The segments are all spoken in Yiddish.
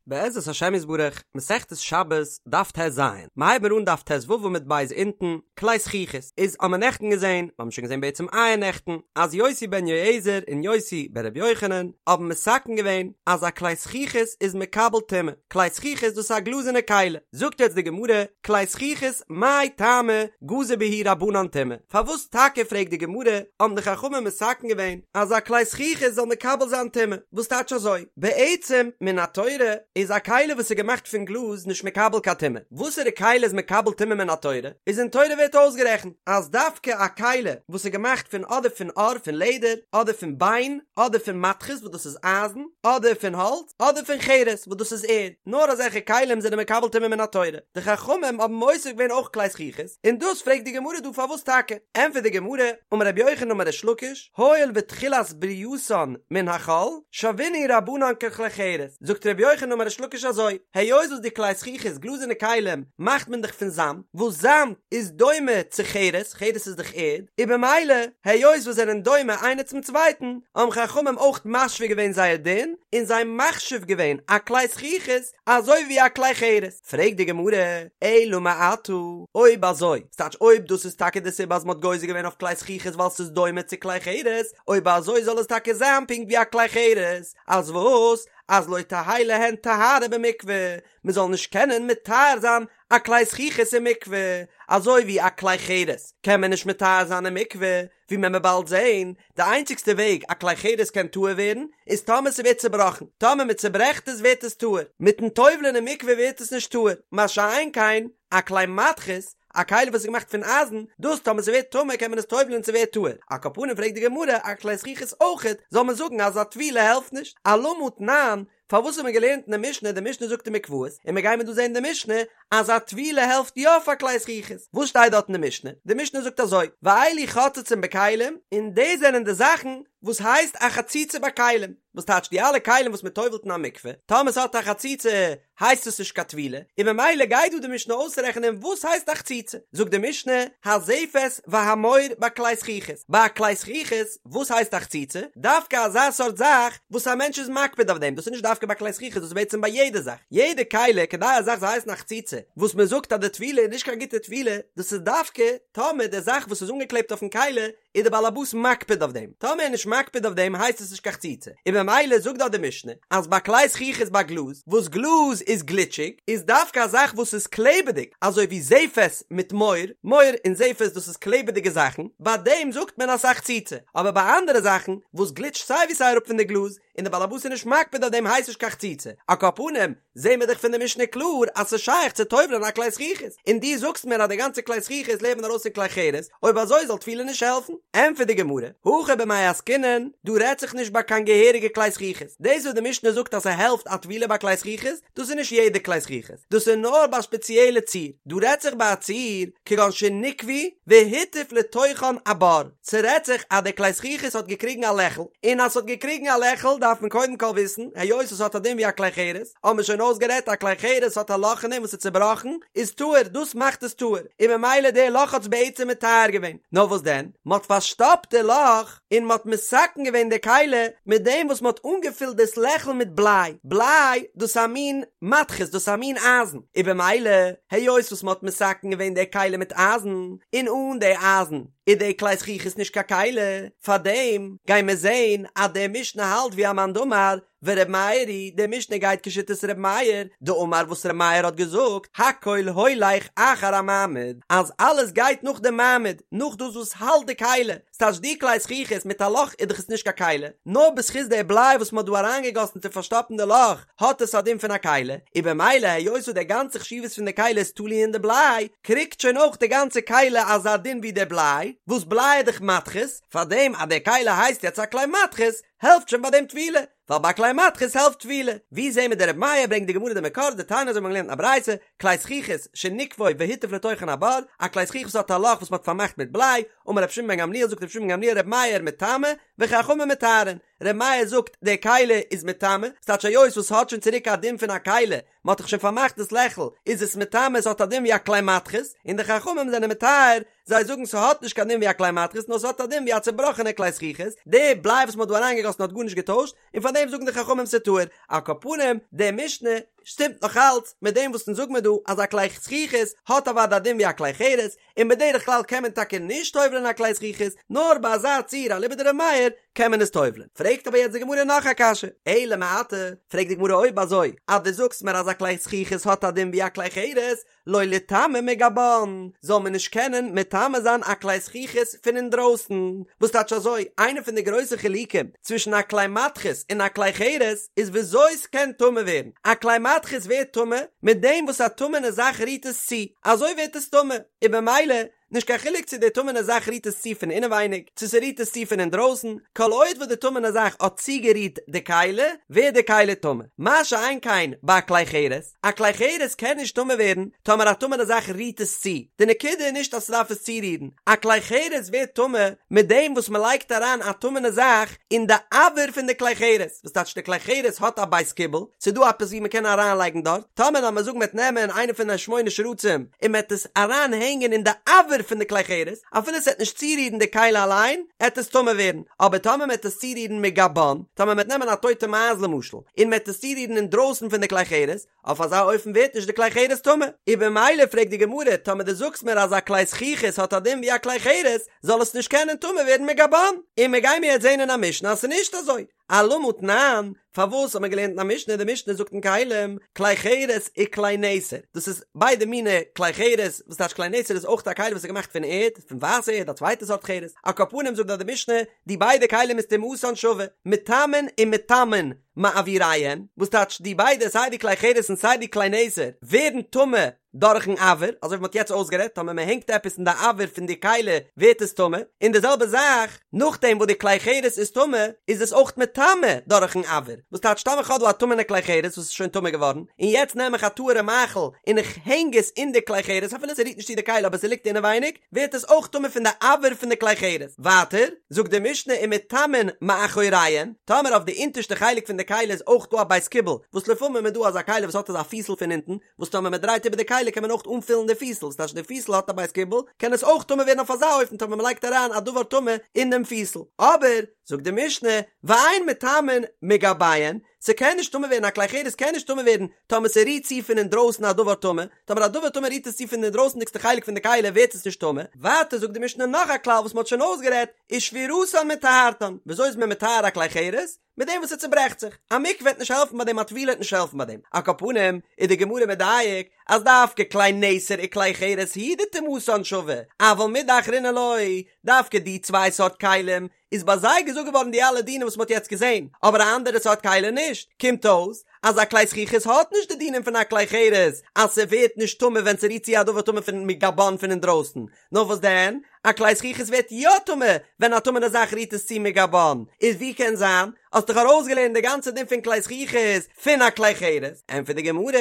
בעזרת השם יתברך, מסכת שבת, דף טז, מ'הייבן מיר אן דף טו עמוד ב' אונטן, כלי זכוכית, איז האמער נעכטן געזען, מ'האבן שוין געזען בעצם אייערנעכטן, אז יוסי בן יועזר און יוסי בן רבי יוחנן האבן מתקן געווען אז א כלי זכוכית איז מקבל טומאה, כלי זכוכית דאס איז א גלאזערנע כלי, זאגט יעצט די גמרא, כלי זכוכית מאי טעמא גזור בהו רבנן טומאה, פארוואס טאקע פרעגט די גמרא האבן די חכמים מתקן געווען אז א כלי זכוכית זאל מקבל זיין טומאה, וואס טייטש אזוי? בעצם מן התורה איז א כלי וואס איז געמאכט פון גלאז נישט מקבל קיין טומאה, וואסערע כלי איז מקבל טומאה מן התורה? איז אין תורה ווערט אויסגערעכנט אז דווקא א כלי וואס איז געמאכט פון אדער פון עור פון לעדער אדער פון ביין אדער פון מתכות וואס דאס איז אייזן אדער פון האלץ אדער פון חרס וואס דאס איז ערד, נאר אזעלכע כלים זענען מקבל טומאה מן התורה, די חכמים האבן מוסיף געווען אויך כלי זכוכית, און דאס פרעגט די גמרא דא פארוואס טאקע? ענטפערט די גמרא, אמר רבי יוחנן אמר ריש לקיש, הואיל ותחילת ברייתן מן החול, שוינהו רבנן ככלי חרס, זאגט רבי יוחנן אמר ריש לקיש אזוי, היות וואס די כלי זכוכית גלאזערנע כלים מאכט מען דאך פון זאמד, וואס זאמד איז דומה צו חרס, חרס איז דאך ערד, און במילא היות וואס זענען דומה איינער צום צווייטן, האבן חכמים אויך משווה געווען זייער דין, און זיי מחשיב געווען א כלי זכוכית אזוי ווי א כלי חרס. פרעגט די גמרא, אלא מעתה, אויב אזוי, ס'טייטש אויב דאס איז טאקע די סיבה אז מ'האט גוזר געווען אויף כלי זכוכית ווייל ס'איז דומה צו כלי חרס, אויב אזוי זאל עס טאקע זיין פונקט ווי א כלי חרס, אז וואס? אז לא תהא להן טהרה במקווה, מ'זאל נישט קענען מטהר זיין א כלי זכוכית אין מקווה, אזוי ווי א כלי חרס קען מען נישט מטהר זיין אין מקווה, ווי מען וועט באלד זעהן, די איינציגסטע וועג א כלי חרס קען טהור ווערן, איז טאמער ס'ווערט צובראכן, טאמער מען צוברעכט עס ווערט עס טהור, מיטן טובל'ען אין מקווה ווערט עס נישט טהור, מה שאין כן א כלי מתכות, א כלי וואס איז געמאכט פון אייזן, דאס טאמער ס'ווערט טמא קען מען עס טובל'ען און ס'ווערט טהור, על כל פנים פרעגט די גמרא, א כלי זכוכית אויכעט, זאל מען זאגן אז א טבילה העלפט נישט, אלמה תנן, פארוואס האט מען געלערנט אין די משנה, די משנה זאגט אין מקוואות, און מיר גיימיר דא זען אין די משנה, אז א טבילה העלפט יא פאר כלי זכוכית, וואס שטייט דארט אין די משנה? די משנה זאגט אזוי, ואלו חוצצין בכלים, און דאס זענען די זאכן וואס הייסט א חציצה ביי כלים, וואס טייטש די אלע כלים וואס מען טובל'ט אין א מקווה, טאמער ס'האט א חציצה הייסט עס נישט קיין טבילה, און ממילא גייט דא די משנה אויסרעכענען וואס הייסט א חציצה, זאגט די משנה, הזפת והמור בכלי זכוכית, ביי א כלי זכוכית, וואס הייסט א חציצה? דווקא אזא סארט זאך וואס א מענטש איז מקפיד אויף דעם, דאס איז נישט דווקא ביי כלי זכוכית, דאס איז בעצם ביי יעדע זאך, יעדע כלי, כדי א זאך זאל הייסן א חציצה, וואס מען זאגט אז די טבילה איז נישט קיין גוטע טבילה, דאס איז דווקא טאמער די זאך וואס איז אנגעקלעבט אויפן כלי איז די בעל הבית מקפיד אויף דעם, טאמער ער איז נישט מקפיד אויף דעם הייסט עס נישט קיין חציצה, און ממילא זאגט דארט די משנה אז ביי כלי זכוכית ביי גלאז, וואס גלאז איז גליטשיג, איז דווקא א זאך וואס איז קלעבעדיג, אזוי ווי זפת מיט מור, מור און זפת דאס איז קלעבעדיגע זאכן, ביי דעם זאגט מען אז ס'איז א חציצה, אבער ביי אנדערע זאכן וואס גליטשט סיי ווי סיי אראפ פון די גלאז, און די בעל הבית איז נישט מקפיד אויף דעם הייסט נישט קיין חציצה, על כל פנים, זעהן מיר דאך פון די משנה קלאר אז ס'איז שייך צו טובל'ען א כלי זכוכית, און דו זאגסט מיר אז די גאנצע כלי זכוכית לערנט מען ארויס פון כלי חרס, אויב אזוי זאל טבילה נישט העלפן? ענטפערט די גמרא, הכא במאי עסקינן, דא רעדט זיך נישט ביי קיין געהעריגע כלי זכוכית, דאס וואס די משנה זאגט אז ס'העלפט א טבילה ביי כלי זכוכית, דאס איז נישט יעדע כלי זכוכית, דאס איז נאר ביי א ספעציעלע ציור, דא רעדט זיך ביי א ציור כגון שניקבו והטיף לתוכן הבור, ס'רעדט זיך אז די כלי זכוכית האט געקריגן א לעכל, און אז ס'האט געקריגן א לעכל דארף מען קודם כל וויסן, היות עס האט א דין ווי א כלי חרס, האבן מיר שוין אויסגערעדט א כלי חרס האט א לאך אין דעם וואס איז צובראכן, איז טהור, דאס מאכט עס טהור, און ממילא די לאך האט עס בעצם מטהר געווען, נאר וואס דען, מ'האט פארשטאפט די לאך, און מ'האט מתקן געווען די כלי מיט דעם וואס מ'האט אנגעפילט דאס לעכל מיט בליי, בליי דאס איז א מין מתכות, דאס איז א מין אייזן, און במילא היות וואס מ'האט מתקן געווען די כלי מיט אייזן, און אן די אייזן איז די כלי זכוכית נישט קיין כלי, פארדעם גייען מיר זען אז די משנה האלט ווי א מאן דאמר, ור' מאיר היא, די משנה גייט כשיטת ר' מאיר, דאמר וואס ר' מאיר האט געזאגט, הכל הולך אחר המעמיד, אז אלעס גייט נאך די מעמיד, נאך דאס וואס האלט די כלי, ס'טייטש די כלי זכוכית מיט א לאך איז דאך עס נישט קיין כלי, נאר בזכות די בליי וואס מ'האט דא אריינגעגאסן צו פארשטאפן די לאך האט עס א דין פון א כלי, און במילא היות וואס די גאנצע חשיבות פון די כלי איז תלוי אין די בליי, קריגט שוין אויך די גאנצע כלי אזא דין ווי די בליי, וואס בליי איז דאך מתכות, פארדעם אז די כלי הייסט יעצט א כלי מתכות, העלפט שוין ביי דעם טבילה, ווייל ביי כלי מתכות העלפט טבילה. ווי זעהן מיר די רבי מאיר ברענגט די גמרא די מקור דתניא אזוי האט מען געלערנט אין א ברייתא, כלי זכוכית שניקבו והטיף לתוכן הבור, א כלי זכוכית וואס האט א לאך וואס מען האט פארמאכט מיט בליי, אמר רבי שמעון בן גמליאל זאגט רבי שמעון בן גמליאל רבי מאיר מטמא וחכמים מטהרין, רבי מאיר זאגט די כלי איז מטמא, ס'טייטש היות וואס ס'האט שוין צוריק א דין פון א כלי, מען האט דאך שוין פארמאכט דאס לעכל, איז עס מטמא עס האט א דין ווי א כלי מתכות, און די חכמים זענען מטהר, זיי זאגן ס'האט נישט קיין דין ווי א כלי מתכות נאר ס'האט א דין ווי א צובראכענע כלי זכוכית, די בליי וואס מ'האט דא אריינגעגאסן האט גארנישט געטוישט, און פאר דעם זאגן די חכמים ס'טהור, על כל פנים, די משנה. שטימט נאך אלץ מיט דעם וואס אונז זאג מיר דא אז א כלי זכוכית האט אוודאי א דין ווי א כלי חרס, און בדרך כלל קען מען טאקע נישט טובל'ען א כלי זכוכית, נאר ביי אזא ציור אליבא דר' מאיר קען מען עס טובל'ען. פרעגט אבער יעצט די גמרא נאך א קשיא, אלא מעתה, פרעגט די גמרא אויב אזוי אז דו זאגסט מיר אז א כלי זכוכית האט א דין ווי א כלי חרס, לא ליטמא מגבן, זאל מען נישט קענען מטמא זיין א כלי זכוכית פון אינדרויסן, וואס טייטש אזוי, איינע פון די גרויסע חילוקים צווישן א כלי מתכות און א כלי חרס איז וויאזוי ס'קען טמא ווערן, א כלי מתכות ווערט טמא מיט דעם וואס א טמא'נע זאך רירט עס צו, אזוי ווערט עס טמא, און במילא נישט קיין חילוק צו די טמא'נע זאך רירט עס צו פון אינעווייניג, צו ס'רירט עס צו פון אינדרויסן, כל עוד וואס די טמא'נע זאך האט צוגערירט די כלי, ווערט די כלי טמא. מה שאין כן ביי א כלי חרס, א כלי חרס קען נישט טמא ווערן טאמער א טמא'נע זאך רירט עס צו, די נקודה איז נישט אז ס'דארף עס צורירן, א כלי חרס ווערט טמא מיט דעם וואס מ'לייגט אריין א טמא'נע זאך אין די אויר פון די כלי חרס, וואס טייטש די כלי חרס האט א בית קיבול, ס'איז דא עפעס ווי מ'קען אריינלייגן דארט, טאמער לאמיר זאגן מ'עט נעמען איינע פון די שמונה שרצים און מ'עט עס אריין הענגען אין די אויר פון די כלי חרס, אפילו ס'עט נישט צורירן די כלי אליין, עט עס טמא ווערן, אבער טאמער מ'עט עס צורירן מגבן, טאמער מ'עט נעמען א טויטע מייז למשל, און מ'עט עס צורירן אינדרויסן פון די כלי חרס, אויף אזא אופן ווערט נישט די כלי חרס טמא, און במילא פרעגט די גמרא, טאמער דו זאגסט מיר אז א כלי זכוכית האט א דין ווי א כלי חרס, זאל עס נישט קענען טמא ווערן מגבן, און מ'גיימיר יעצט זען אין א משנה אז ס'איז נישט אזוי. אלמה תנן, פארוואס האט מען געלערנט אין א משנה, די משנה זאגט אין כלים, כלי חרס וכלי נתר, דאס איז ביידע מיני כלי חרס, וואס טייטש כלי נתר איז אויך א כלי וואס איז געמאכט פון ערד, פון ווייסע ערד, א צווייטע סארט חרס, על כל פנים זאגט דארט די משנה, די ביידע כלים איז טומאתן שווה, מטמאין ומטמאין מאויריהן, וואס טייטש די ביידע סיי די כלי חרס און סיי די כלי נתר ווערן טמא דורכן אויר, אזוי ווי מ'האט יעצט אויסגערעדט, טאמער מ'הענגט עפעס אין די אויר פון די כלי ווערט עס טמא, און די זעלבע זאך, נאכדעם וואס די כלי חרס איז טמא, איז עס אויך מטמא דורכן אויר, וואס טייטש טאמער כ'האב דא א טמא'נע כלי חרס וואס איז שוין טמא געווארן, און יעצט נעם איך א טהור'ע מאכל און איך הענג עס אין די כלי חרס אפילו ס'רירט נישט צו די כלי אבער ס'ליגט אינעווייניג, ווערט עס אויך טמא פון די אויר פון די כלי חרס. ווייטער, זאגט די משנה ומטמאין מאחוריהן, טאמער אויף די אונטערשטע חלק פון די כלי איז אויך דא א בית קיבול, וואס לפעמים איז דא אזא כלי וואס האט אזא פיסל פון אונטן, וואס טאמער מען דרייט איבער די כלי קען מען אויך אנפילן די פיסל, ס'טייטש די פיסל האט א בית קיבול, קען עס אויך טמא ווערן אויף אזא אופן טאמער מען לייגט אריין א דבר טמא אין דעם פיסל. אבער, זאגט די משנה, ואין מטמאין מגביהן, ס'קען נישט טמא ווערן, א כלי חרס קען נישט טמא ווערן טאמער ס'רירט צו פון אינדרויסן א דבר טמא, טאמער א דבר טמא רירט עס צו פון די אינדרויסנדיגסטע חלק פון די כלי ווערט עס נישט טמא. ווייטער זאגט די משנה נאך א כלל וואס מען האט שוין אויסגערעדט, ושבירתן מטהרתן, וויאזוי איז מען מטהר א כלי חרס? מיט דעם וואס עס צוברעכט זיך, א מקווה וועט נישט העלפן ביי דעם, א טבילה וועט נישט העלפן ביי דעם, על כל פנים איז די גמרא מדייק אז דווקא כלי נתר וכלי חרס הוא דטומאתן שווה, אבל מידי אחרינא לא, דווקא די צוויי סארט כלים איז ביי זיי געזאגט געווארן די אלע דינים וואס מען האט יעצט געזען, אבער א אנדערע סארט כלי נישט, קומט אויס אז א כלי זכוכית האט נישט די דינים פון א כלי חרס אז ס'ווערט נישט טמא ווען ס'רירט צו א דבר טמא פון מגבן פון אינדרויסן, נאר וואס דען? א כלי זכוכית ווערט יא טמא ווען א טמא'נע זאך רירט עס צו מגבן, איז ווי קען זיין? האסט דאך ארויסגעלערנט די גאנצע דין פון כלי זכוכית פון א כלי חרס, ענטפערט די גמרא,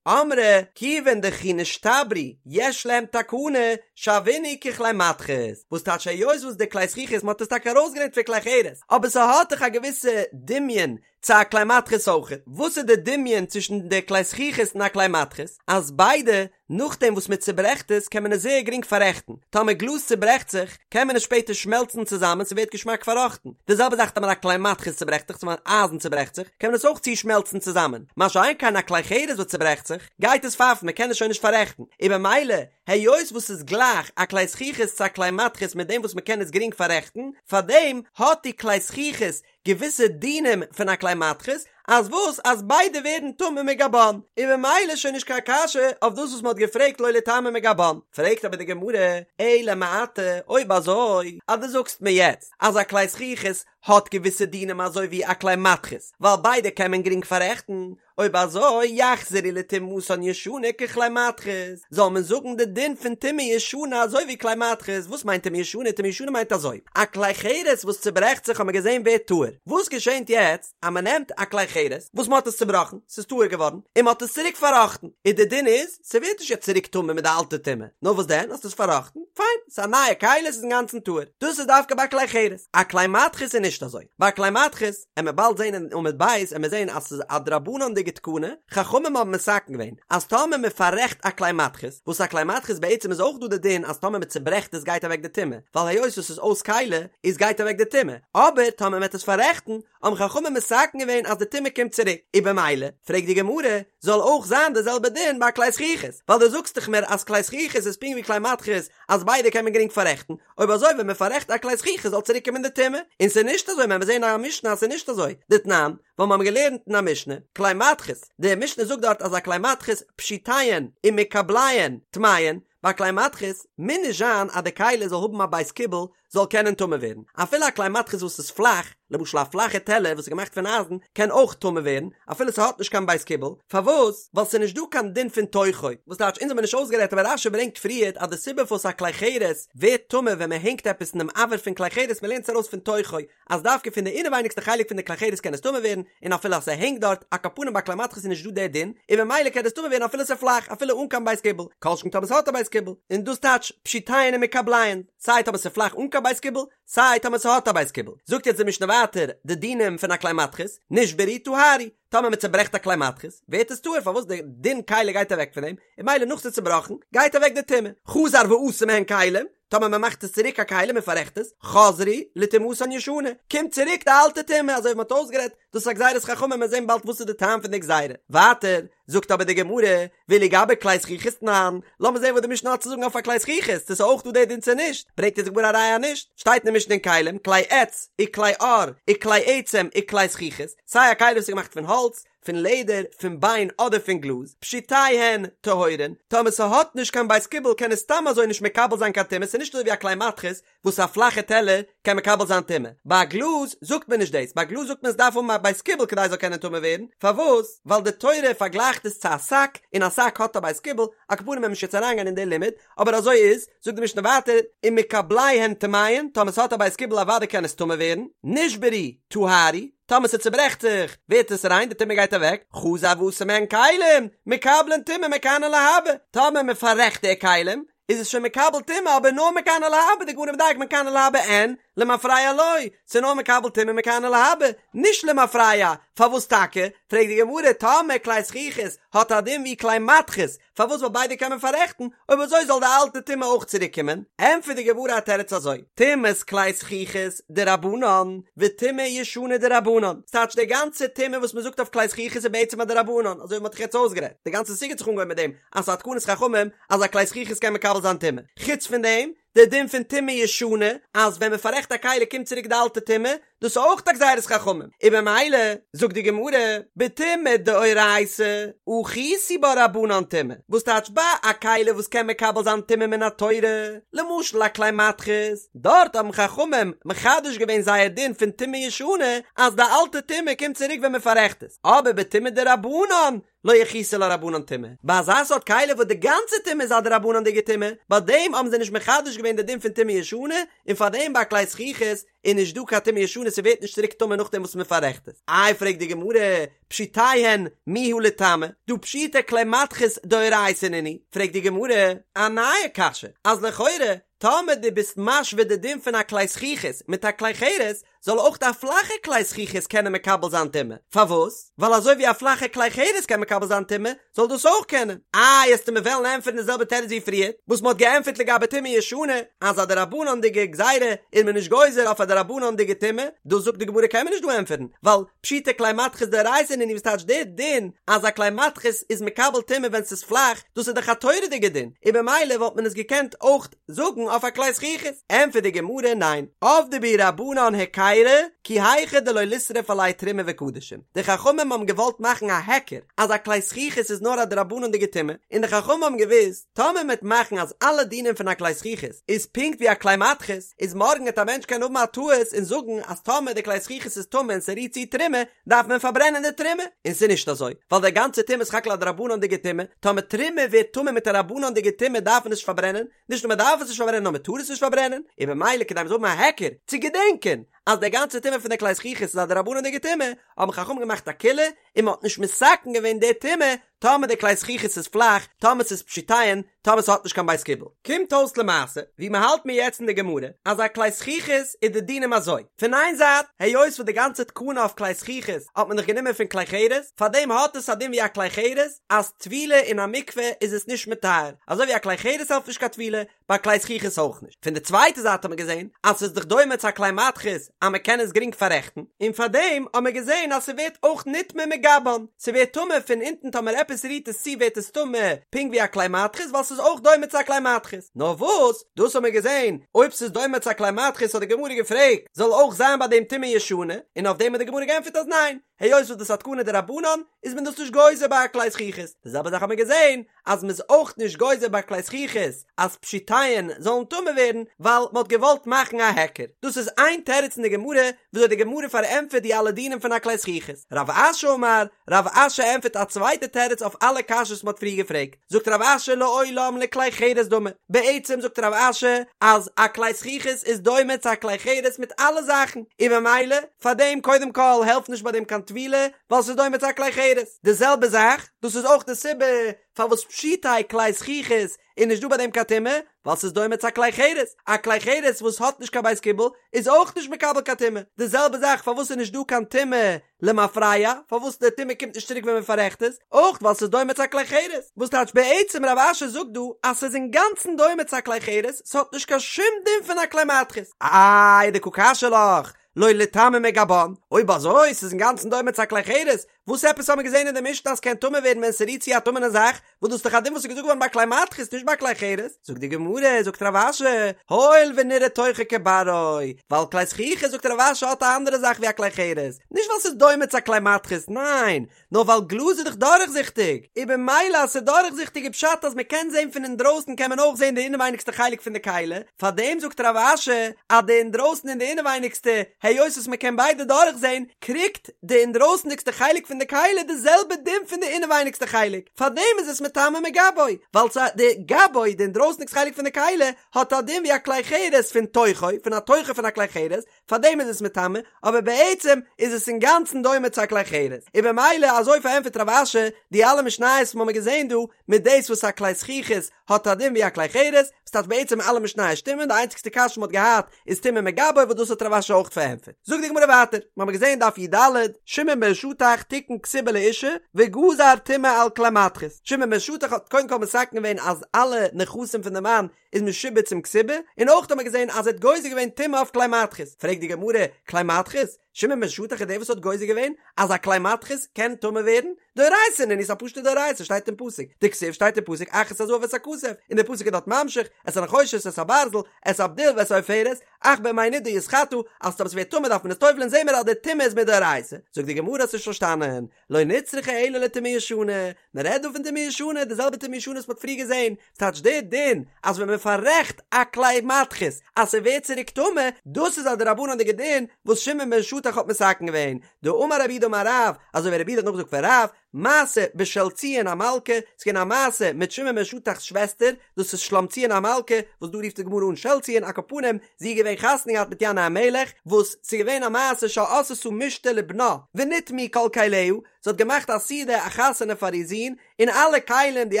אמרי כיוון דכי נשתברו יש להם תקנה שוינהו ככלי מתכות, וואס טייטש היות וואס די כלי זכוכית מ'האט עס טאקע ארויסגעלערנט פון כלי חרס, אבער ס'האט דאך א געוויסע דמיון צו א כלי מתכות אויכעט. וואס איז די דמיון צווישן די כלי זכוכית און א כלי מתכות? אז ביידע, נאכדעם וואס מען צוברעכט עס קען מען עס זייער גרינג פאררעכטן. טאמער גלאז צוברעכט זיך, קען מען עס שפעטער שמעלצן צוזאמען ס'ווערט געשמאק פארראכטן. די זעלבע זאך טאמער א כלי מתכות צוברעכט זיך, טאמער אייזן צוברעכט זיך, קען מען עס אויך צושמעלצן צוזאמען. מה שאין כן א כלי חרס וואס צוברעכט זיך, גייט עס פייפן, מען קען עס שוין נישט פאררעכטן. און במילא, היות וואס ס'איז גלייך א כלי זכוכית צו א כלי מתכות מיט דעם וואס מען קען עס גרינג פאררעכטן, פארדעם האט די כלי זכוכית געוויסע דינים פון א כלי מתכות, אז וואס אז ביידע ווערן טמא מגבן, און ממילא איז שוין נישט קיין קשיא אויף דאס וואס מ'האט געפרעגט לא ליטמא מגבן. פרעגט אבער די גמרא, אלא מעתה, אויב אזוי אז דו זאגסט מיר יעצט אז א כלי זכוכית האט געוויסע דינים אזוי ווי א כלי מתכות, ווייל ביידע קען מען גרינג פאררעכטן, אויב אזוי יחזרו לטומאתן ישנה ככלי מתכות, זאל מען זאגן די דין פון טומאה ישנה אזוי ווי כלי מתכות, וואס מיינט טומאה ישנה? טומאה ישנה מיינט אזוי, א כלי חרס וואס צוברעכט זיך האט מען געזען ווערט טהור, וואס געשענט יעצט אז מען נעמט א כלי חרס וואס מען האט עס צובראכן, ס'איז טהור געווארן, און מען האט עס צוריק פארראכטן, איז די דין איז, ס'ווערט נישט יעצט צוריק טמא מיט די אלטע טומאה, נאר וואס דען, האסט עס פארראכטן, פיין, ס'איז א נייע כלי, ס'איז אינגאנצן טהור, דאס איז דווקא ביי כלי חרס, א כלי מתכות איז נישט. נישט אזוי. ביי כלי מתכות, עמיר באלד זען אין עמוד ב', עמיר זען אז ס'איז א דרבנן'דיגע תקנה, חכמים האבן מתקן געווען אז טאמער מען פאררעכט א כלי מתכות, וואס א כלי מתכות בעצם איז אויך דא די דין אז טאמער מען צוברעכט עס גייט אוועק די טומאה, ווייל היות עס איז אויס כלי איז גייט אוועק די טומאה, אבער טאמער מען וועט עס פאררעכטן האבן חכמים מתקן געווען אז די טומאה קומט צוריק, און במילא פרעגט די גמרא, זאל אויך זיין די זעלבע דין ביי כלי זכוכית, ווייל דו זאגסט דאך מיר אז כלי זכוכית איז פונקט ווי כלי מתכות אז ביידע קען מען גרינג פאררעכטן, אויב אזוי ווען מען פאררעכט א כלי זכוכית זאל צוריק קומען די טומאה, און ס'איז נישט אזוי וועלן מיר זעהן אין א משנה אז ס'איז נישט אזוי, דתנן, ווייל מיר האבן געלערנט אין א משנה, כלי מתכות, די משנה זאגט דארט אז א כלי מתכות פשוטיהן ומקבליהן טמאין, ביי כלי מתכות מוז נישט זיין אז די כלי זאל האבן א בית קיבול זאל קענען טמא ווערן, אפילו א כלי מתכות וואס איז פלאך, למשל א פלאכע טעלער וואס איז געמאכט פון אייזן קען אויך טמא ווערן, אפילו ס'האט נישט קיין בית קיבול, פארוואס? ווייל ס'איז נישט דא קיין דין פון תוכו, וואס טייטש אונז האבן נישט אויסגערעדט אבער רש"י ברענגט פריערט אז די סיבה פארוואס א כלי חרס ווערט טמא ווען מ'הענגט עפעס אינעם אויר פון כלי חרס מ'לערנט עס ארויס פון תוכו אז דווקא פון די אינעווייניגסטע חלק פון די כלי חרס קען עס טמא ווערן, און אפילו אז ס'הענגט דארט, על כל פנים ביי כלי מתכות איז נישט דא דער דין, און ממילא קען עס טמא ווערן אפילו ס'איז פלאך, אפילו אן קיין בית קיבול, כל שכן טאמער ס'האט א בית קיבול, און דאס טייטש פשוטיהן ומקבליהן, סיי טאמער ס'איז פלאך אן קיין בית קיבול, סיי טאמער ס'האט א בית קיבול. זאגט יעצט די משנה ווייטער די דינים פון א כלי מתכות, נשברו טהרו, טאמער מ'צוברעכט א כלי מתכות, ווערט עס טהור, פארוואס די דין כלי גייט אוועק פון דעם, און ממילא נאך ס'איז צובראכן, גייט אוועק די טומאה. חזר ועשה מהן כלים, טאמער מען מאכט עס צוריק א כלי מען פאררעכט עס, חזרו לטומאתן ישנה, קומט צוריק די אלטע טומאה, אזוי ווי מען האט אויסגערעדט, דאס איז א גזירת חכמים, מיר זעהן באלד וואס איז די טעם פון די גזירה. ווייטער זאגט אבער די גמרא, ואילו גבי כלי זכוכית תנן, לאמיר זעהן וואס די משנה האט צו זאגן אויף א כלי זכוכית, צו עס איז אויך דא די דין צו נישט, ברענגט אונז די גמרא א ראיה אז נישט, שטייט אין די משנה אין כלים, כלי עץ, וכלי עור, וכלי עצם, וכלי זכוכית, סיי א כלי וואס איז געמאכט פון האלץ, פון לעדער, פון ביין אדער פון גלאז, פשוטיהן טהורין, טאמער ס'האט נישט קיין בית קיבול קען עס סתם אזוי נישט מקבל זיין קיין טומאה, ס'איז נישט אזוי ווי א כלי מתכות וואס א פלאכע טעלער קען מקבל זיין טומאה, ביי א גלאז זאגט מען נישט דאס, ביי א גלאז זאגט מען עס דארף האבן א בית קיבול כדי עס זאל קענען טמא ווערן, פארוואס? ווייל די תורה פארגלייכט עס צו א שק, און א שק האט א בית קיבול, על כל פנים וועלן מיר נישט יעצט אריינגיין אין די לימוד, אבער אזוי איז, זאגט די משנה ווייטער, ומקבליהן טמאין, טאמער ס'האט א בית קיבול אוודאי קען עס טמא ווערן, נשברו, טהרו, טאמער ס'צוברעכט זיך, ווערט עס ריין, די טומאה גייט אוועק, חזר ועשה מהן כלים, מקבלין טומאה מכאן ולהבא, טאמער מ'פאררעכט די כלים, איז עס שוין מקבל טומאה אבער נאר מכאן ולהבא, די גמרא מדייק מכאן ולהבא אין, למפרע לא, ס'איז נאר מקבל טומאה מכאן ולהבא, נישט למפרע, פארוואס טאקע? פרעגט די גמרא, טאמער כלי זכוכית האט א דין ווי כלי מתכות, פארוואס ווייל ביידע קען מען פאררעכטן, אויב אזוי זאל די אלטע טומאה אויך צוריק קומען? ענטפערט די גמרא א תירוץ אזוי, טומאת כלי זכוכית דרבנן, וטומאה ישנה דרבנן, ס'טייטש די גאנצע טומאה וואס מ'זאגט אויף כלי זכוכית איז בעצם א דרבנן, אזוי ווי מ'האט דאך יעצט אויסגערעדט, די גאנצע סוגיא האט זיך אנגעהויבן מיט דעם אז ס'איז א תקנת חכמים אז א כלי זכוכית קען מקבל זיין טומאה, חוץ פון דעם, די דין פון טומאה ישנה, אז ווען מ'פאררעכט א כלי קומט צוריק די אלטע טומאה, דאס איז אויך א גזירת חכמים, און במילא זאגט די גמרא, בטומאה דאורייתא, אחיתו בה רבנן טומאה, וואס טייטש ביי א כלי וואס קען מקבל זיין טומאה מן התורה, למשל א כלי מתכות, דארט האבן חכמים מחדש געווען זייער דין פון טומאה ישנה, אז די אלטע טומאה קומט צוריק ווען מען פאררעכט עס, אבער בטומאה דרבנן, לא אחיתו לה רבנן טומאה, ביי אזא סארט כלי וואס די גאנצע טומאה איז א דרבנן'דיגע טומאה, ביי דעם האבן זיי נישט מחדש געווען די דין פון טומאה ישנה, און פאר דעם ביי א כלי זכוכית איז נישט דא קיין טומאה ישנה ס'ווערט נישט צוריק טמא נאכדעם וואס מ'פאררעכט עס. איי פרעגט די גמרא, פשוטיהן מיהא ליטמא, דהא פשיטא כלי מתכות דאורייתא נינהו, פרעגט די גמרא א נייע קשיא, אז לכאורה טאמער דו ביסט משווה די דין פון א כלי זכוכית מיט א כלי חרס, זאל אויך א פלאכע כלי זכוכית קענען מקבל זיין טומאה. פארוואס? ווייל אזוי ווי א פלאכע כלי חרס קען מקבל זיין טומאה, זאל דאס אויך קענען. איי, עסטו מיר וועלן ענטפערן די זעלבע תירוץ ווי פריער, וואס מ'האט געענטפערט לגבי טומאה ישנה, אז א דרבנן'דיגע גזירה איז מען נישט גוזר אויף א דרבנן'דיגע טומאה, דאס זאגט די גמרא קען מען נישט דא ענטפערן, ווייל פשיטא כלי מתכות דאורייתא נינהו וואס טייטש דער דין אז א כלי מתכות איז מקבל טומאה ווען ס'איז פלאך, דאס איז דאך א תורה'דיגע דין, און במילא וואלט מען עס געקענט אויך זאגן אויף א כלי זכוכית. ענטפערט די גמרא, ניין, עבדי בהו רבנן היכירא, כי היכי דלא לישרף עלייהו תרומה וקדשים, די חכמים האבן געוואלט מאכן א היכר אז א כלי זכוכית איז נאר א דרבנן'דיגע טומאה, און די חכמים האבן געוואוסט, טאמער מ'עט מאכן אז אלע דינים פון א כלי זכוכית איז פונקט ווי א כלי מתכות, איז מארגן עט א מענטש קענען האבן א טעות און זאגן אז טאמער די כלי זכוכית איז טמא און ס'רירט צו תרומה, דארף מען פארברענען די תרומה, און ס'איז נישט אזוי, ווייל די גאנצע טומאה איז סך הכל א דרבנן'דיגע טומאה, טאמער תרומה ווערט טמא מיט א רבנן'דיגע טומאה דארף מען עס נישט פארברענען, נישט נאר מען דארף עס נישט פארברענען נאר מען טאר עס נישט פארברענען, און במילא כדי מען זאל האבן א היכר צו געדענקען. אז די גאנצע טומאה פון די כלי זכוכית איז א דרבנן'דיגע טומאה, האבן חכמים געמאכט א קולא און מען האט נישט מתקן געווען די טומאה טאמער די כלי זכוכית איז פלאך, טאמער ס'איז פשוטיהן, טאמער ס'האט נישט קיין בית קיבול. קומט אויס למעשה, ווי מ'האלט מיר יעצט אין די גמרא, אז א כלי זכוכית איז די דינים אזוי, פון איין זייט, היות וואס די גאנצע תקנה אויף כלי זכוכית האט מען דאך גענומען פון כלי חרס, פארדעם האט עס א דין ווי א כלי חרס, אז טבילה אין א מקווה איז עס נישט מטהר, אזוי ווי א כלי חרס העלפט נישט קיין טבילה, ביי כלי זכוכית אויך נישט. פון די צווייטע זייט האט מען געזען אז ס'איז דאך דומה צו א כלי מתכות אז מ'קען עס גרינג פאררעכטן, און פארדעם האט מען געזען אז ס'ווערט אויך נטמא מגבן, ס'ווערט טמא פון אונטן טאמער עפעס רירט עס צו ווערט עס טמא פונקט ווי א כלי מתכות ווייל ס'איז אויך דומה צו א כלי מתכות. נאר וואס, דאס האט מען געזען, אויב ס'איז דומה צו א כלי מתכות האט די גמרא געפרעגט, זאל אויך זיין ביי דעם טומאה ישנה, און אויף דעם האט די גמרא געענטפערט אז ניין, היות וואס דאס איז א תקנה דרבנן איז מען דאס נישט גוזר ביי א כלי זכוכית, די זעלבע זאך האט מען געזען אז מ'איז אויך נישט גוזר ביי כלי זכוכית אז פשוטיהן זאלן טמא ווערן ווייל מ'האט געוואלט מאכן א היכר. דאס איז איין תירוץ אין די גמרא וויאזוי די גמרא פארענטפערט די אלע דינים פון א כלי זכוכית. רב אשי אמר, רב אשי ענטפערט א צווייטע תירוץ אויף אלע קשיות וואס מ'האט פריער געפרעגט. זאגט רב אשי לעולם לכלי חרס דמי. בעצם זאגט רב אשי אז א כלי זכוכית איז דומה צו א כלי חרס מיט אלע זאכן, און ממילא פארדעם קודם כל העלפט נישט ביי דעם קיין טבילה ווייל ס'איז דומה צו א כלי חרס. די זעלבע זאך דאס איז אויך די סיבה פארוואס פשוטי כלי זכוכית איז נישט דא ביי דעם קיין טומאה, ווייל ס'איז דומה צו א כלי חרס, א כלי חרס וואס האט נישט קיין בית קיבול איז אויך נישט מקבל קיין טומאה, די זעלבע זאך פארוואס איז נישט דא קיין טומאה למפרע, פארוואס די טומאה קומט נישט צוריק ווען מען פאררעכט עס, אויך ווייל ס'איז דומה צו א כלי חרס, וואס טייטש בעצם רב אשי זאגט דא אז ס'איז אינגאנצן דומה צו א כלי חרס, ס'האט נישט קיין שום דין פון א כלי מתכות. איי דקא קשיא לך, לא ליטמא מגבן, אויב אזוי ס'איז אינגאנצן דומה צו א כלי חרס, וואס עפעס האבן מיר געזען אין די משנה אז ס'קען טמא ווערן ווען ס'רירט צו א טמא'נע זאך, וואס דאס איז דאך א דין וואס איז געזאגט געווארן ביי כלי מתכות נישט ביי כלי חרס, זאגט די גמרא, זאגט רב אשי, הואיל ונראה תוכו כברו, ווייל כלי זכוכית זאגט רב אשי האט א אנדערע זאך ווי א כלי חרס, נישט ווייל ס'איז דומה צו א כלי מתכות, ניין, נאר ווייל גלאז איז דאך דורכזיכטיג, און במילא אז ס'איז דורכזיכטיג איז פשט אז מ'קען זען פון אינדרויסן קען מען אויך זען די אינעווייניגסטע חלק פון די כלי, פארדעם זאגט רב אשי אז די אינדרויסן און די אינעווייניגסטע, היות וואס מ'קען ביידע דורכזען, קריגט די אינדרויסנדיגסטע חלק פון די כלי די זעלבע דין פון די אינעווייניגסטע חלק, פארדעם איז עס מטמא מגבו, ווייל ס' די גבו, די אינדרויסנדיגסטע חלק פון די כלי, האט א דין ווי א כלי חרס פון תוכו, פון א תוכו פון א כלי חרס, פארדעם איז עס מטמא, אבער בעצם איז עס אינגאנצן דומה צו א כלי חרס, און במילא אזוי פארענטפערט רב אשי די אלע משניות וואס מ'האמיר געזען דא, מיט דאס וואס א כלי זכוכית האט א דין ווי א כלי חרס, וואס טייטש בעצם אלע משניות שטימען, די איינציגסטע קשיא וואס מ'האט געהאט איז טומאה מגבו וואס דאס האט רב אשי אויך פארענטפערט. זאגט די גמרא ווייטער, מ'האמיר געזען דף י"ד, שמעון בן שטח תיקן כתובה לאשה וגזר טומאה על כלי מתכות, שמעון בן שטח האט קודם כל מתקן געווען אז אלע נכסים פון די מאן איז משועבד צום כתובה, און אויך האט מען געזען אז ער האט גוזר געווען טומאה אויף כלי מתכות, פרעגט די גמרא, כלי מתכות? שמעון בן שטח איז דער וואס האט גוזר געווען אז א כלי מתכות קען טמא ווערן? דאורייתא נינהו ס'איז א פשוטע דאורייתא שטייט אין פסוק, דכתיב שטייט אין פסוק אך את הזהב ואת הכסף, און דער פסוק איז דארט ממשיך, את הנחושת את הברזל, את הבדיל ואת העופרת, אך במי נדה יתחטא, אז טאמער ס'ווערט טמא דארף מען עס טובל'ען זעהן מיר אז די טומאה איז מדאורייתא, זאגט די גמרא האסט נישט פארשטאנען, לא נצרכה אלא לטומאה ישנה, מען רעדט דא פון טומאה ישנה, די זעלבע טומאה ישנה וואס מען האט פריער געזען, ס'טייטש די דין אז ווען מען פאררעכט א כלי מתכות אז ס'ווערט צוריק טמא, דאס איז א דרבנן'דיגע דין וואס שמעון בן שטח האט מתקן געווען, דאמר רב יהודה אמר רב, אזוי ווי רב יהודה האט נאכגעזאגט פון רב, מעשה בשלציון המלכה, ס'איז געווען א מעשה מיט שמעון בן שטח'ס שוועסטער, דאס איז שלומציון המלכה, וואס דא רופט די גמרא אן שלציון, על כל פנים, זי איז געווען חתונה געהאט מיט ינאי המלך, וואס ס'איז געווען א מעשה שעשתה משתה לבנה, ונטמאו כל כליה, זי האט געמאכט א סעודה א חתונה פאר איר זון, און אלע כלים, די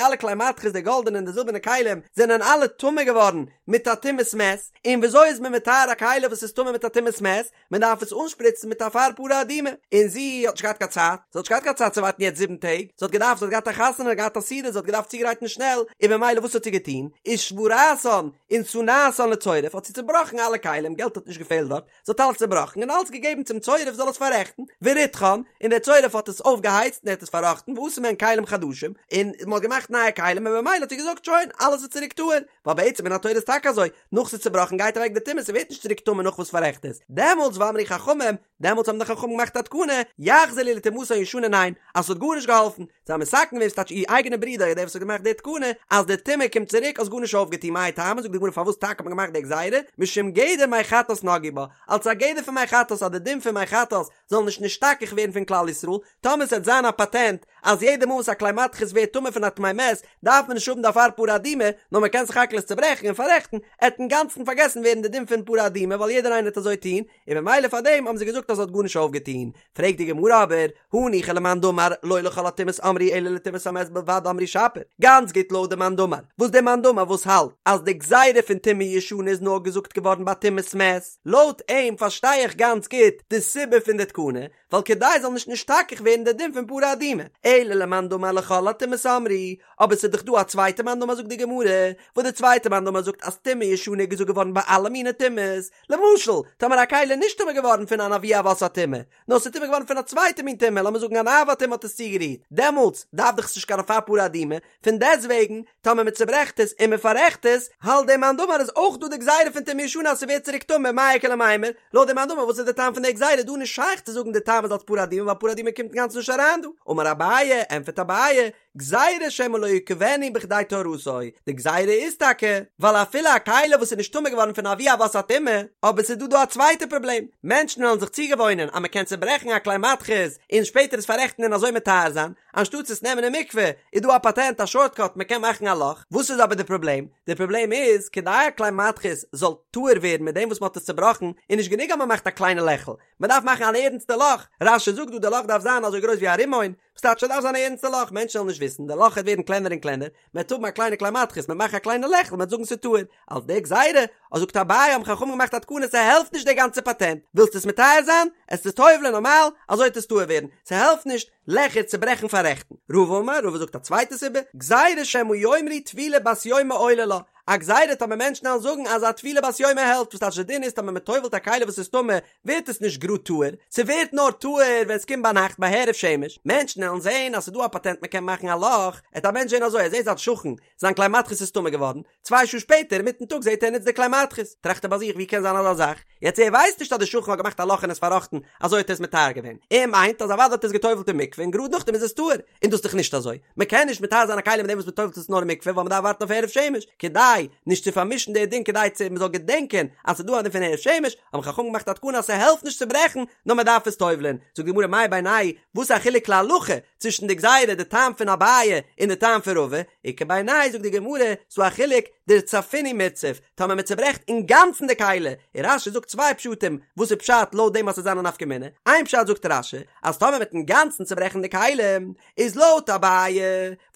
אלע כלי מתכות, די גאלדענע און די זילבערנע כלים, זענען אלע טמא געווארן מיט א טומאת מת, און וויאזוי איז מען מטהר א כלי וואס איז טמא מיט א טומאת מת? מען דארף עס אנשפריצן מיט אפר פרה אדומה, און זי האט נישט געהאט קיין צייט, זי האט נישט געהאט קיין צייט צו ווארטן יעצט זיבן טעג, זי האט געדארפט, זי האט געהאט א חתונה, געהאט א סעודה, זי האט געדארפט צוגרייטן שנעל, און במילא וואס האט זי געטון? ושברתן ונתנתן לצורף, האט זי צובראכן אלע כלים, געלט האט נישט געפעלט דארט, זי האט אלעס צובראכן און אלעס געגעבן צום צורף זאל עס פאררעכטן, וריתחן, און דער צורף האט עס אויפגעהייצט און ער האט עס פארראכטן, ועשה מהן כלים חדשים, און מען האט געמאכט נייע כלים, און במילא האט זי געזאגט שוין, אלעס איז צוריק טהור, ווייל בעצם מן התורה איז טאקע אזוי, נאך ס'איז צובראכן גייט אוועק די טומאה ס'ווערט נישט צוריק טמא נאך וואס פאררעכט עס, דעמאלטס ואמרו חכמים, דעמאלטס האבן די חכמים געמאכט א תקנה, יחזרו לטומאתן הישנה ניין, אז ס'האט גארנישט געהאלפן, זיי האבן מתקן געווען ס'טייטש איר אייגענע ברודער דער וואס האט געמאכט די תקנה, אז די טומאה קומט צוריק האסט גארנישט אויפגעטון מאי טעמא זאגט די גמרא פארוואס טאקע האט מען געמאכט די גזירה, משום גדר מי חטאת נגעו בה, אלס א גדר פון מי חטאת אז די דין פון מי חטאת זאל נישט נשתכח ווערן פון כלל ישראל, טאמער ס'וועט זיין א פאטענט אז יעדע מאל וואס א כלי מתכות מתכות ווערט טמא פון א טמא מת דארף מען נישט האבן די אפר פרה אדומה, נאר מען קען סך הכל עס צוברעכן און פאררעכטן, עט אינגאנצן פארגעסן ווערן די דין פון פרה אדומה ווייל יעדער איינער עט אזוי טון, און ממילא פאר דעם האבן זיי געזאגט אז ס'האט גארנישט אויפגעטון. פרעגט די גמרא אבער, הניחא למאן דאמר לא לכל הטומאות אמרו אלא לטומאת המת בלבד אמרו שפיר, גאנץ גוט לויט די מאן דאמר, וואס די מאן דאמר וואס האלט אז די גזירה פון טומאה ישנה איז נאר געזאגט געווארן ביי טומאת מת, לויט אים פארשטיי איך גאנץ גוט די סיבה פון די תקנה, ווייל כדי זאל נישט נשתכח ווערן די דין פון פרה אדומה, אלא למאן דאמר לכל הטומאות אמרו, אבער ס'איז דאך דא א צווייטע מאן דאמר זאגט די גמרא, וואס די צווייטע מאן דאמר זאגט אז טומאה ישנה איז געזאגט געווארן ביי אלע מיני טומאות, למשל, טאמער א כלי איז נישט טמא געווארן פון אן אבי אבות הטומאה, נאר ס'איז טמא געווארן פון א צווייטע מין טומאה, לאמיר זאגן אן אב הטומאה האט עס צוגערירט, דעמאלטס דארף דאך עס נישט קיין אפר פרה אדומה, פון דעסטוועגן, טאמער מען צוברעכט עס און מען פאררעכט עס, האלט דער מאן דאמר איז אויך דא די גזירה פון טומאה ישנה אז ס'ווערט צוריק טמא, מאי איכא למימר, לויט דעם מאן דאמר וואס איז די טעם פון די גזירה, דא נישט שייך צו זאגן די טעם איז אלס פרה אדומה ווייל פרה אדומה קומט אינגאנצן נישט אריין דא. אמר אביי, ענטפערט אביי, גזירה שמא לא יקבנו בכדי טהרתו, די גזירה איז טאקע ווייל אפילו א כלי וואס איז נישט טמא געווארן פון אבי אבות הטומאה, אבער ס'איז דא דא א צווייטע פראבלעם, מענטשן וועלן זיך צוגעוואוינען אז מ'קען צוברעכן א כלי מתכות און שפעטער עס פאררעכטן און אזוי מטהר זיין, אנשטאטס עס נעמען אין מקווה איז דא א פאטענט א שארטקאט מ'קען מאכן א לאך, וואס איז אבער די פראבלעם? די פראבלעם איז כדי א כלי מתכות זאל טהור ווערן מיט דעם וואס מ'האט עס צובראכן איז נישט גענוג אז מ'מאכט א קליינע לעכל, מ'דארף מאכן אן ערנסטע לאך, רש"י זאגט דא די לאך דארף זיין אזוי גרויס ווי א רימון, ס'טייטש ס'דארף זיין א ערנסטע לאך, מענטשן וועלן נישט וויסן, די לאך וועט ווערן קלענער און קלענער, מ'וועט האבן א קליינע כלי מתכות, מ'וועט מאכן א קליינע לעכל, מ'וועט זאגן ס'איז טהור. אלס די גזירה, אז זאגט אביי האבן חכמים געמאכט א תקנה ס'העלפט נישט די גאנצע פאטענט, ווילסט עס מטהר זיין, עסט עס טובל'ען נארמאל, אזוי וועט עס טהור ווערן, ס'העלפט נישט לעכער צוברעכן פאררעכטן. רבא אמר, רבא זאגט א צווייטע סיבה, גזירה שמא יאמרו טבילה בת יומא עולה לה, א גזירה טאמער מענטשן וועלן זאגן אז א טבילה בת יומא העלפט, וואס טייטש די דין איז טאמער מ'טובל'ט א כלי וואס איז טמא, ווערט עס נישט גראד טהור, ס'ווערט נאר טהור ווען ס'קומט ביינאכט ביי הערב שמש, מענטשן עלן זעהן אז ס'דא א פאטענט מ'קען מאכן א לאך, עט א מענטש זעהן אזוי ער זעהט זיין שכן זיין כלי מתכות איז טמא געווארן, צוויי שעה שפעטער אינמיטן טאג זעהט ער ער נוצט די כלי מתכות, טראכט ער ביי זיך ווי קען זיין אזא זאך, יעצט ער ווייסט נישט אז די שכן האט געמאכט א לאך און עס פארראכטן אזוי האט ער עס מטהר געווען, ער מיינט אז אוודאי האט ער עס געטובלט אין מקווה און גראד נאכדעם איז עס טהור, און דאס איז דאך נישט אזוי, מען קען נישט מטהר זיין א כלי מיט דעם וואס מען טובל'ט עס נאר אין מקווה ווייל מען דארף ווארטן אויף הערב שמש, כדי נישט צו פארמישן די דין כדי צו מען זאל געדענקען אז ס'איז דא א דין פון הערב שמש, האבן חכמים געמאכט א תקנה אז ס'העלפט נישט צו ברעכן נאר מען דארף עס טובל'ען, זאגט די גמרא מאי בינייהו וואס איז א חילוק להלכה צווישן די גזירה די טעם פון אביי און די טעם פון רבא, איכא בינייהו זאגט די גמרא ס'דא א חילוק דרצפינהו מירצף טאמער מען צוברעכט אינגאנצן די כלי, און רש"י זאגט צוויי פשטים וואס איז פשט לויט דעם אז ס'זאל זיין א נפקא מינה, איין פשט זאגט רש"י אז טאמער מ'וועט אינגאנצן צוברעכן די כלי איז לויט אביי,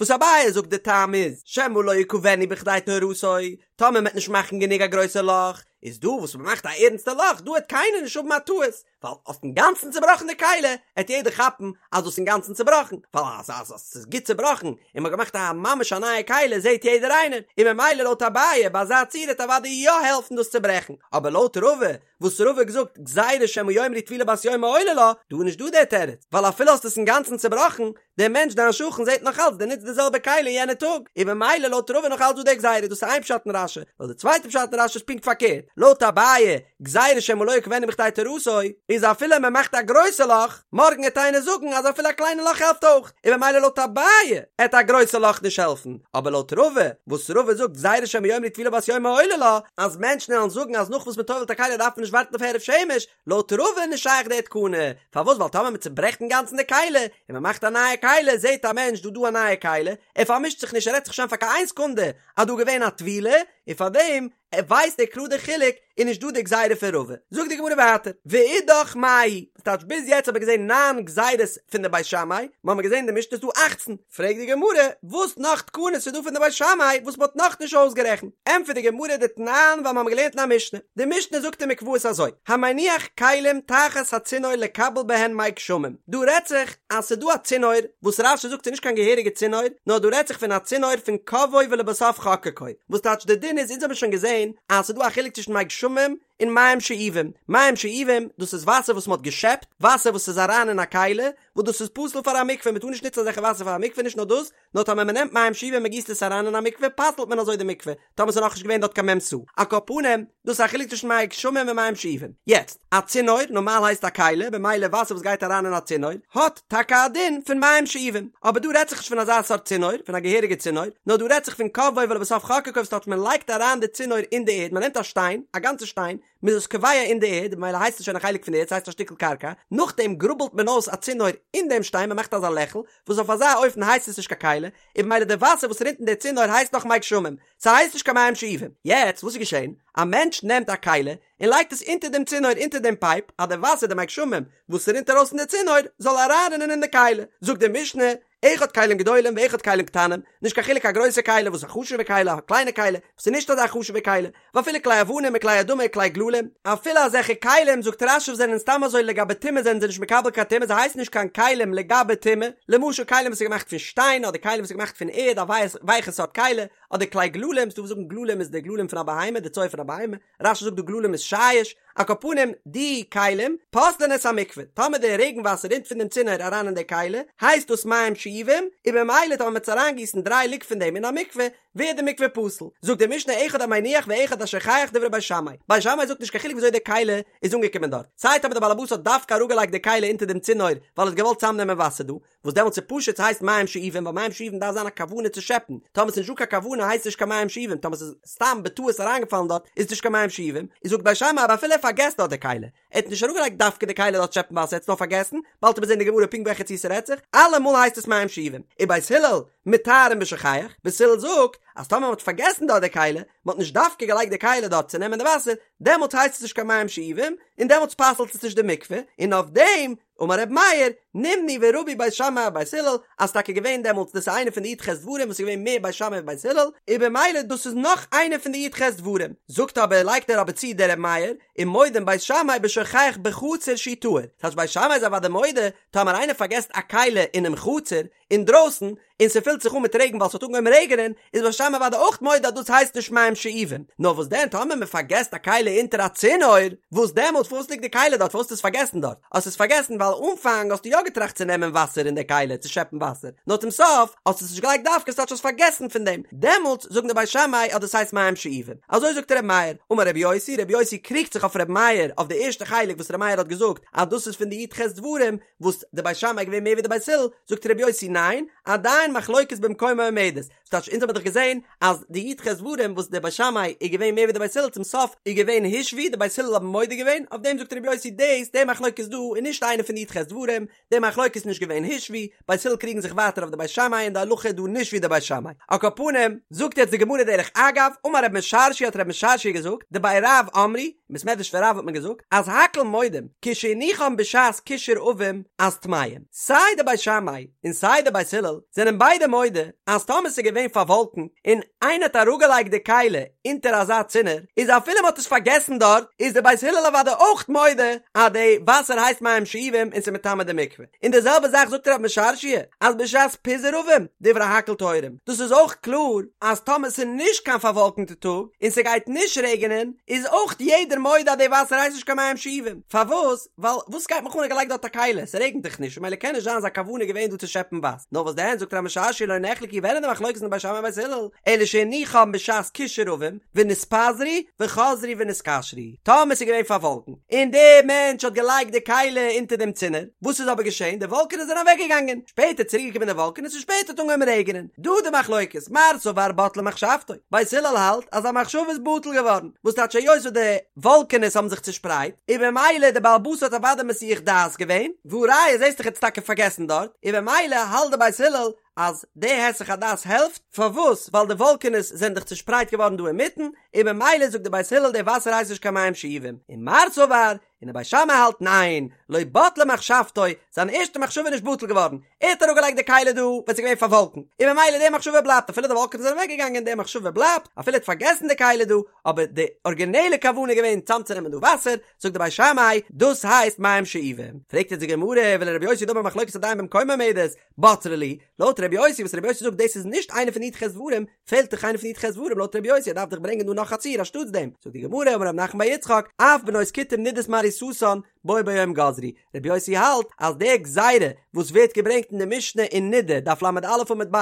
וואס אביי זאגט די טעם איז שמא לא יקבנו בכדי טהרתו, טאמער מ'וועט נישט מאכן גענוג א גרויסע לאך, איז דא וואס מ'מאכט א ערנסטע לאך דא העט קיינער נישט האבן א טעות, ווייל האסט אינגאנצן צובראכן די כלי, העט יעדער כאפן אז דאס איז אינגאנצן צובראכן, ווייל אז אז אז ס'איז גוט צובראכן און מ'האט געמאכט א ממש א נייע כלי זעהט יעדער איינער, און ממילא לויט אביי ביי אזא ציור העט אוודאי יא העלפן דאס צוברעכן, אבער לויט רבא וואס רבא האט געזאגט גזירה שמא יאמרו טבילה בת יומא עולה לה, דא איז נישט דא דער תירוץ, ווייל אפילו האסט עס אינגאנצן צובראכן, דער מענטש דיין שכן זעט נאך אלץ דו נוצט די זעלבע כלי יענע טאג, און ממילא לויט רבא נאך אלץ דא די גזירה, דאס איז איין פשט אין רש"י, לויט די צווייטע פשט אין רש"י איז פונקט פארקערט, לויט אביי, גזירה שמא לא יקבנו בכדי טהרתו, איז אפילו מען מאכט א גרויסע לאך, מארגן עט איינער זאגן אז אפילו א קליינע לאך העלפט אויך, און ממילא לויט אביי עט א גרויסע לאך נישט העלפן, אבער לויט רבא, וואס רבא זאגט גזירה שמא יאמרו טבילה בת יומא עולה לה, אז מענטשן וועלן זאגן אז נאך וואס מען טובל'ט א כלי דארף מען נישט ווארטן אויף הערב שמש, לויט רבא איז נישט שייך די תקנה, פארוואס ווייל טאמער מען צוברעכט אינגאנצן די כלי, און מען מאכט א נייע כלי, זעט א מענטש דא דא א נייע כלי, ער פארמישט זיך נישט ער רעדט זיך נישט איין פאר קיין איין סעקונדע אז דא געווען א טבילה, און פארדעם ער ווייסט ער קלאר די חילוק, איז נישט דא די גזירה פון רבא. זאגט די גמרא ווייטער, ואידך מאי, וואס טייטש ביז יעצט האב איך געזען ניין גזירות פון די בית שמאי, מיר האבן געזען אין די משנה איז דא אכצן, פרעגט די גמרא, וואס נאך תקנות איז דא פון די בית שמאי וואס מ'האט נאך נישט אויסגערעכנט? ענטפערט די גמרא דתנן ווייל מ'האבן געלערנט אין א משנה, די משנה זאגט אין מקוואות אזוי, המניח כלים תחת הצינור לקבל בהן מי גשמים, דא רעדט זיך אז ס'איז דא א צינור, וואס רש"י זאגט ס'איז נישט קיין געהעריגע צינור, נאר דא רעדט זיך פון א צינור פון קבעו ולבסוף חקקו, וואס טייטש די דין איז אונז האבן שוין געזען אז ס'איז דא א חילוק צווישן מי גשמים און מים שאובים, מים שאובים דאס איז וואסער וואס מ'האט געשעפט, וואסער וואס איז אריין אין א כלי, וואס דאס איז פסול פאר א מקווה, מען טאר נישט נוצן אזעלכע וואסער פאר א מקווה, נישט נאר דאס, נאר טאמער מען נעמט מים שאובים און מען גיסט עס אריין אין א מקווה פסל'ט מען אזוי די מקווה, טאמער ס'איז נאכנישט געווען דארט קיין מ' סאה. על כל פנים, דאס איז א חילוק צווישן מי גשמים און מים שאובים. יעצט, א צינור, נארמאל הייסט א כלי, במילא וואסער וואס גייט אריין אין א צינור, האט טאקע א דין פון מים שאובים. אבער דא רעדט זיך נישט פון אזא סארט צינור, פון א געהעריגע צינור, נאר דא רעדט זיך פון קבעו ולבסוף חקקו וואס טייטש מען לייגט אריין די צינור אין די ערד, מען נעמט א שטיין, א גאנצע שטיין, מ'איז עס קובע אין די ערד, ממילא הייסט עס שוין א חלק פון די ערד, ס'הייסט א שטיקל קרקע, נאכדעם גראבלט מען אויס א צינור אין דעם שטיין, מ'מאכט אזא לעכל, וואס אויף אזא אופן הייסט עס נישט קיין כלי, און ממילא די וואסער וואס רינט אין די צינור הייסט נאך מי גשמים, ס'הייסט נישט קיין מים שאובים. יעצט וואס איז געשען? א מענטש נעמט א כלי און לייגט עס אונטער דעם צינור אונטער דעם פייפ, אז די וואסער די מי גשמים וואס ס'רינט ארויס פון די צינור זאל אריינרינען אין די כלי, זאגט די משנה, אחד כלים גדולים ואחד כלים קטנים, נישט קיין חילוק א גרויסע כלי וואס איז א חשוב'ע כלי, א קליינע כלי וואס איז נישט אזא חשוב'ע כלי, ואפילו כלי אבנים וכלי אדמה וכלי גללים, אפילו אזעלכע כלים זאגט רש"י וואס זענען סתם אזוי לגבי טומאה זענען זיי נישט מקבל קיין טומאה זיי הייסן נישט קיין כלים לגבי טומאה, למשל כלים וואס איז געמאכט פון שטיין אדער כלים וואס איז געמאכט פון ערד א ווייכע סארט כלי, אדער כלי גללים, ס'דא וואס זאגן גללים איז די גללים פון א בהמה די צואה פון א בהמה, רש"י זאגט דא גללים איז שיש, על כל פנים די כלים פוסלין את המקווה, טאמער די רעגן וואסער רינט פון דעם צינור אריין אין די כלי, הייסט דאס מים שאובים, און במילא טאמער מ'וועט אריינגיסן דריי לוג פון דעם אין א מקווה, ווערט די מקווה פסול. זאגט די משנה אחד המניח ואחד השוכח דברי בית שמאי, בית שמאי זאגט נישט קיין חילוק וויאזוי די כלי איז אנגעקומען דארט, סיי טאמער די בעל הבית האט דווקא אראפגעלייגט די כלי אונטער דעם צינור ווייל ער האט געוואלט צאמנעמען וואסער דא, וואס דעמאלטס איז פשוט ס'הייסט מים שאובים ווייל מים שאובים דארף זיין א כוונה צו שעפן, טאמער ס'איז נישט דא קיין כוונה הייסט עס נישט קיין מים שאובים, טאמער ס'איז סתם בטעות אריינגעפאלן דארט איז עס נישט קיין מים שאובים, איז זאגט בית שמאי אבער אפילו ער פארגעסט דארט די כלי, ער האט נישט אראפגעלייגט דווקא די כלי דארט שעפן וואסער ער האט עס נאר פארגעסן, באלד וועט מען זען אין די גמרא פונקט וועלכע ציור ס'רעדט זיך, אלעמאל הייסט עס מים שאובים, ובית הלל מטהרין בשוכח, בית הלל זאגט אז טאמער מ'האט פארגעסן דארט די כלי, מ'האט נישט דווקא געלייגט די כלי דארט צו נעמען די וואסער, דעמאלטס הייסט עס נישט קיין מים שאובים, און דעמאלטס פסל'ט עס נישט די מקווה, און אויף דעם אמר ר' מאיר, נמנו ורבו בית שמאי ובית הלל, אז ס'טאקע געווען דעמאלטס דאס איז איינע פון די י"ח דברים וואס איז געווען מער בית שמאי ווי בית הלל, און במילא דאס איז נאך איינע פון די י"ח דברים. זאגט אבער, לייגט ער אבער צו דער ר' מאיר, ומודים בית שמאי בשוכח בחצר שהוא טהור, ס'טייטש בית שמאי איז אוודאי מודה, טאמער איינער פארגעסט א כלי אינעם חצר, אינדרויסן, און ס'פילט זיך אן מיט רעגן ווייל ס'האט אנגעהויבן רעגענען, איז בית שמאי אוודאי אויך מודה אז דאס הייסט נישט מים שאובים. נאר וואס דען טאמער מ'פארגעסט א כלי אונטער א צינור, וואס דעמאלט פארוואס ליגט די כלי דארט פארוואס האסטו עס פארגעסן דארט? האסט עס פארגעסן ווייל אנפאנג האסטו יא געטראכט צו נעמען וואסער אין די כלי צו שעפן וואסער, נאר צום סוף האסטו עס נישט געלייגט דווקא ס'טייטש האסט פארגעסן פון דעם, דעמאלט זאגן די בית שמאי אז דאס הייסט מים שאובים. אזוי זאגט ר' מאיר. אמר ר' יוסי, ר' יוסי קריגט זיך אויף ר' מאיר אויף די ערשטע חלק וואס ר' מאיר האט געזאגט אז דאס איז פון די י"ח דברים, וואס די בית שמאי איז געווען מער ווי די בית הלל, זאגט ר' יוסי ניין, עדיין מחלוקת במקומה עומדת, ס'טייטש אונז האבן דאך געזען אז די י"ח דברים וואס די בית שמאי איז געווען מער ווי די בית הלל צום סוף איז געווען הושוו די בית הלל האבן מודה געווען, אויף דעם זאגט ר' יוסי דאס די מחלוקת דא איז נישט איינע פון די י"ח דברים, די מחלוקת איז נישט געווען הושוו, בית הלל קריגן זיך ווייטער אויף די בית שמאי און די הלכה איז דא נישט ווי די בית שמאי. על כל פנים, זאגט יעצט די גמרא דרך אגב, אמר רב משרשיא האט רב משרשיא געזאגט, דבי רב אמרו, אין בית מדרש פון רב האט מען געזאגט אז הכל מודים כשהניחן בשעת קשור עבים אז טמאים, סיי די בית שמאי און סיי די בית הלל זענען ביידע מודה אז טאמער ס'איז געווען פארוואלקנט און איינער האט אראפגעלייגט די כלי אונטער אזא צינור איז אפילו מ'האט עס פארגעסן דארט איז די בית הלל אוודאי אויך מודה אז די וואסער הייסט מים שאובים און ס'איז מטמא די מקווה. און די זעלבע זאך זאגט רב משרשיא אז בשעת פיזור עבים דברי הכל טהורים, דאס איז אויך קלאר אז טאמער ס'איז נישט קיין פארוואלקענטע טאג און ס'גייט נישט רעגענען איז אויך יעדער מודה אז די וואסער הייסט נישט קיין מים שאובים, פארוואס? ווייל וואס גייט מיך אן ער האט געלייגט דארט א כלי, ס'רעגנט דאך נישט ממילא קען נישט זיין זיין כוונה געווען דא צו שעפן וואסער, נאר וואס דען זאגט רב משרשיא לא נחלקו ווען איז די מחלוקת אין בית שמאי ובית הלל, אלא שהניחן בשעת קשור עבים ונתפזרו וחזרו ונתקשרו, טאמער ס'איז געווען פארוואלקנט און דער מענטש האט געלייגט די כלי אונטער דעם צינור, וואס איז אבער געשען? די וואלקענעס זענען אוועק געגאנגען, שפעטער צוריק געקומען די וואלקענעס און שפעטער האט אנגעהויבן רעגענען, דא די מחלוקת, מר סבר בטלה מחשבתו, בית הלל האלט אז א מחשבה איז בטל געווארן, וואס טייטש היות וואס די וואלקענעס האבן זיך צושפרייט, און במילא די בעל הבית האט אוודאי מסיח דעת געווען, והא ראיה זעסט דאך ער האט עס טאקע פארגעסן דארט, און במילא האלט די בית הלל אז די היסח הדעת העלפט, פארוואס? ווייל די וואלקענעס זענען דאך צושפרייט געווארן דא אינמיטן, און במילא זאגט די בית הלל די וואסער הייסט נישט קיין מים שאובים, און מר סבר, און די בית שמאי האלט ניין, לא בטלה מחשבתו, זיין ערשטע מחשבה איז נישט בטל געווארן, ער האט אראפגעלייגט די כלי דא ווען ס'איז געווען פארוואלקנט, און במילא די מחשבה בלייבט אפילו די וואלקענעס זענען אוועקגעגאנגען די מחשבה בלייבט, אפילו ער האט פארגעסן די כלי דא, אבער די ארגינעלע כוונה איז געווען צאמצונעמען דא וואסער, זאגט די בית שמאי, דאס הייסט מים שאובים. פרעגט יעצט די גמרא, ולרבי יוסי דאמר מחלוקת עדיין במקומה עומדת, בצרי להו, לויט רבי יוסי וואס רבי יוסי זאגט דאס איז נישט איינע פון די י"ח דברים, פעלט דאך איינע פון די י"ח דברים לויט רבי יוסי ער דארף דאך ברענגען דא נאך א ציור אנשטאטס דעם, זאגט די גמרא אמר רב נחמן בר יצחק, אף בנות כותים נידות מעריסתן. בו ביום גזרו, רבי יוסי האלט אז די גזירה וואס ווערט געברענגט אין די משנה אין נידה, דף ל"א עמוד ב',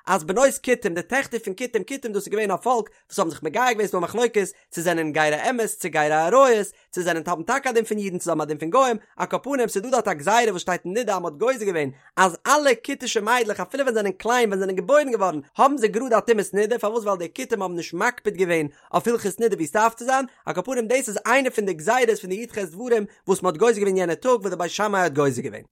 אז בנות כותים, די טעכטער פון כותים, כותים דאס איז געווען א פאלק וואס האבן זיך מגייר געווען, ס'איז דא א מחלוקת צו זענען גירי אמת צו גירי אריות, צו זענען האבן טאקע א דין פון אידן צו זיי האבן א דין פון גוים, על כל פנים ס'איז דא דארט א גזירה וואס שטייט אין נידה אז מ'האט גוזר געווען אז אלע כותישע מיידלעך אפילו ווען זיי זענען קליין ווען זיי זענען געבוירן געווארן האבן זיי גראד א טומאת נידה, פארוואס ווייל די כותים האבן נישט מקפיד געווען אויף הלכות נידה ווי ס'דארף צו זיין, על כל פנים דאס איז איינע פון די גזירות פון די י"ח דברים וואס מ'האט גוזר געווען יענע טאג וואס די בית שמאי האט גוזר געווען.